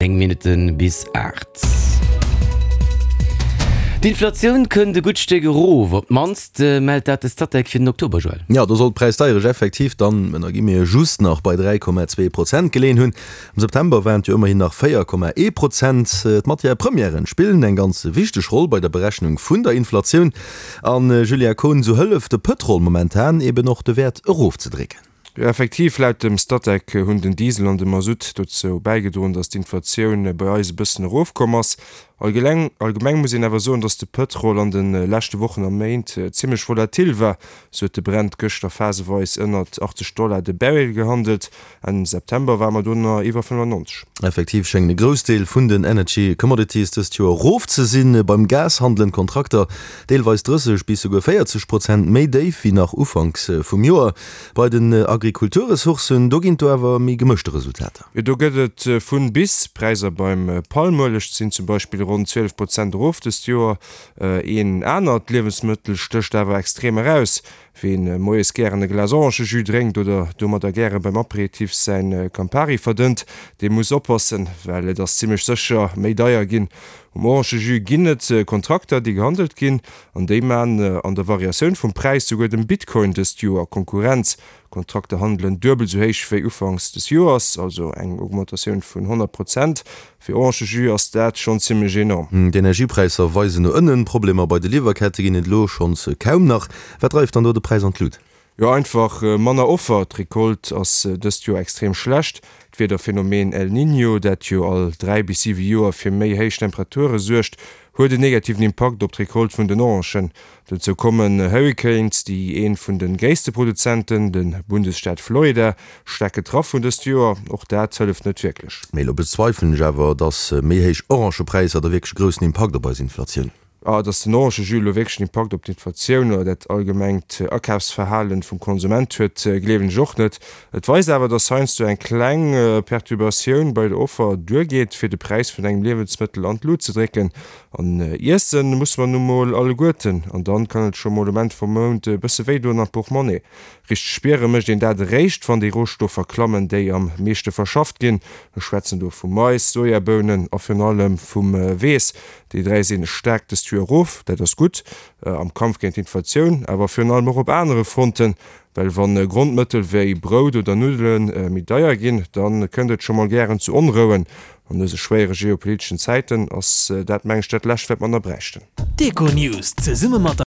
9 Minutte bis 8. D'Inflatioun kënnt e gutt Stéck erof, op d'mannst mellt dat de Statec fir den Oktober, Joël. Jo, do soll d'Präisdeierecht effektiv dann, ënner guillemete, just nach bei 3,2 Prozent geleeën hunn. Am September waren et jo ëmmerhin nach 4,1 Prozent. D'Matière premièren spillen eng ganz wichteg Roll bei der Berechnung vun der Inflatioun. An, Julia Kohn, esou hëlleft de Pëtrol momentan eben och de Wäert erofzedrécken. Jo, effektiv, laut dem Statec hunn den Diesel an de Masutt dozou bäigedroen, datt d'Inflatioun bei eis e bëssen erofkomm ass. Allgeleng allgemeng muss een awer soen, datt de Pëtrol an de leschte Wochen a Méint zimmlech volatil war. Sou huet de Brent gëschter phaseweis ënnert 80 Dollar de Barrel gehandelt, Enn September ware mer do nach iwwer 95. Effektiv schéngen e Groussdeel vun den Energy Commodities dëst Joer erof ze sinn. Beim Gas handelen d'Kontrakter deelweis 30 bis souguer 40 Prozent méi déif wéi nach ufanks vum Joer. Bei den Agrikulturressourcen, do ginn et do awer méi gemëschte Resultater. Jo, do gëtt et vun bis. D'Präisser beim Palmueleg sinn zum Beispill ronn 12 Prozent erof dëst Joer. Een anert Liewensmëttel stécht awer extrem eraus. Ween moies gären e Glas Orangejus drénkt oder domadder gäre beim Aperitif säin Campari verdënnt, dee muss oppassen, well et ass zimmlech sécher méi deier ginn. Um Orangejus ginn et Kontrakter, déi gehandelt ginn. An déi maan an der Variatioun vum Präis souguer dem Bitcoin dëst Joer Konkurrenz. Kontrakter handelen duebel sou héich wéi ufanks des Joers, also eng Augmentatioun vun 100 Prozent. Fir Orangejus ass dat schonn zimmlech enorm. D'Energiepräisser weisen no ënnen, Problemer bei de Liwwerkette ginn et elo schonns kaum nach. Wat dreift dann do de Präis an d'Lut? Jo, einfach manner Offer. D'Recolte ass dëst Joer extrem schlecht. D'Wiederphenomen El Niño, dat jo all 3 bis 7 Joer fir méi héich Temperature suergt, huet en negativen Impakt op d'Recolte vun den Orangen. Dozou kommen Hurricanes, déi ee vun de gréisste Produzenten, de Bundesstaat Florida, staark getraff hunn dëst Joer. Och dat hëlleft net wierklech. Mee elo bezweifelen ech awer, dass méi héich Orangepräisser da wierklech e groussen Impakt op eis Inflatioun. Ah, dass den Orangejus elo wierklech en Impakt op d'Inflatioun oder dat allgemengt Akafsverhalen vum Konsument huet, gleewen ech och net. Et weist awer, dass heiansdo eng kleng Perturbatioun bei der Offer duergeet, fir de Präis vun engem Liewensmëttel an d'Lut ze drécken. An iesse musse mer nu mol alleguerten, an dann kann et scho mol um Enn vum Mount e bësse wéi doen am Portmonnaie. Richteg spiere mécht een dat eréischt, wann déi Rohstoffer klammen, déi am meeschte verschafft ginn. Ech schwätzen do vu Mais, Sojabounen a virun allem vum Weess. Déi 3 sinn staark dëst Joer erof, dat ass gutt am Kampf géint d'Inflatioun, awer virun allem och op anere Fronten, well wann Grondmëttel wéi Brout oder Nuddele méi deier ginn, da kënnt et scho mol gären zu Onrouen. An dëse schwéiere geopoliteschen Zäiten ass dat, meng ech, dat lescht wat mer nach bräichten. D'Econews zesumme mat der.